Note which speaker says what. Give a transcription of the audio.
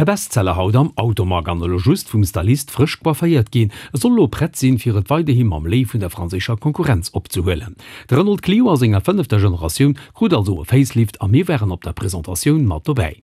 Speaker 1: E Bestseller haut am Automag an elo just vum Stylist frësch coifféiert ginn. E soll elo prett sinn, fir et weiderhi mam Léiw vun der franséischer Konkurrenz opzehuelen. De Renault Clio a senger fënnefter Generatioun krut also e Facelift a mir waren op der Presentatioun mat dobäi.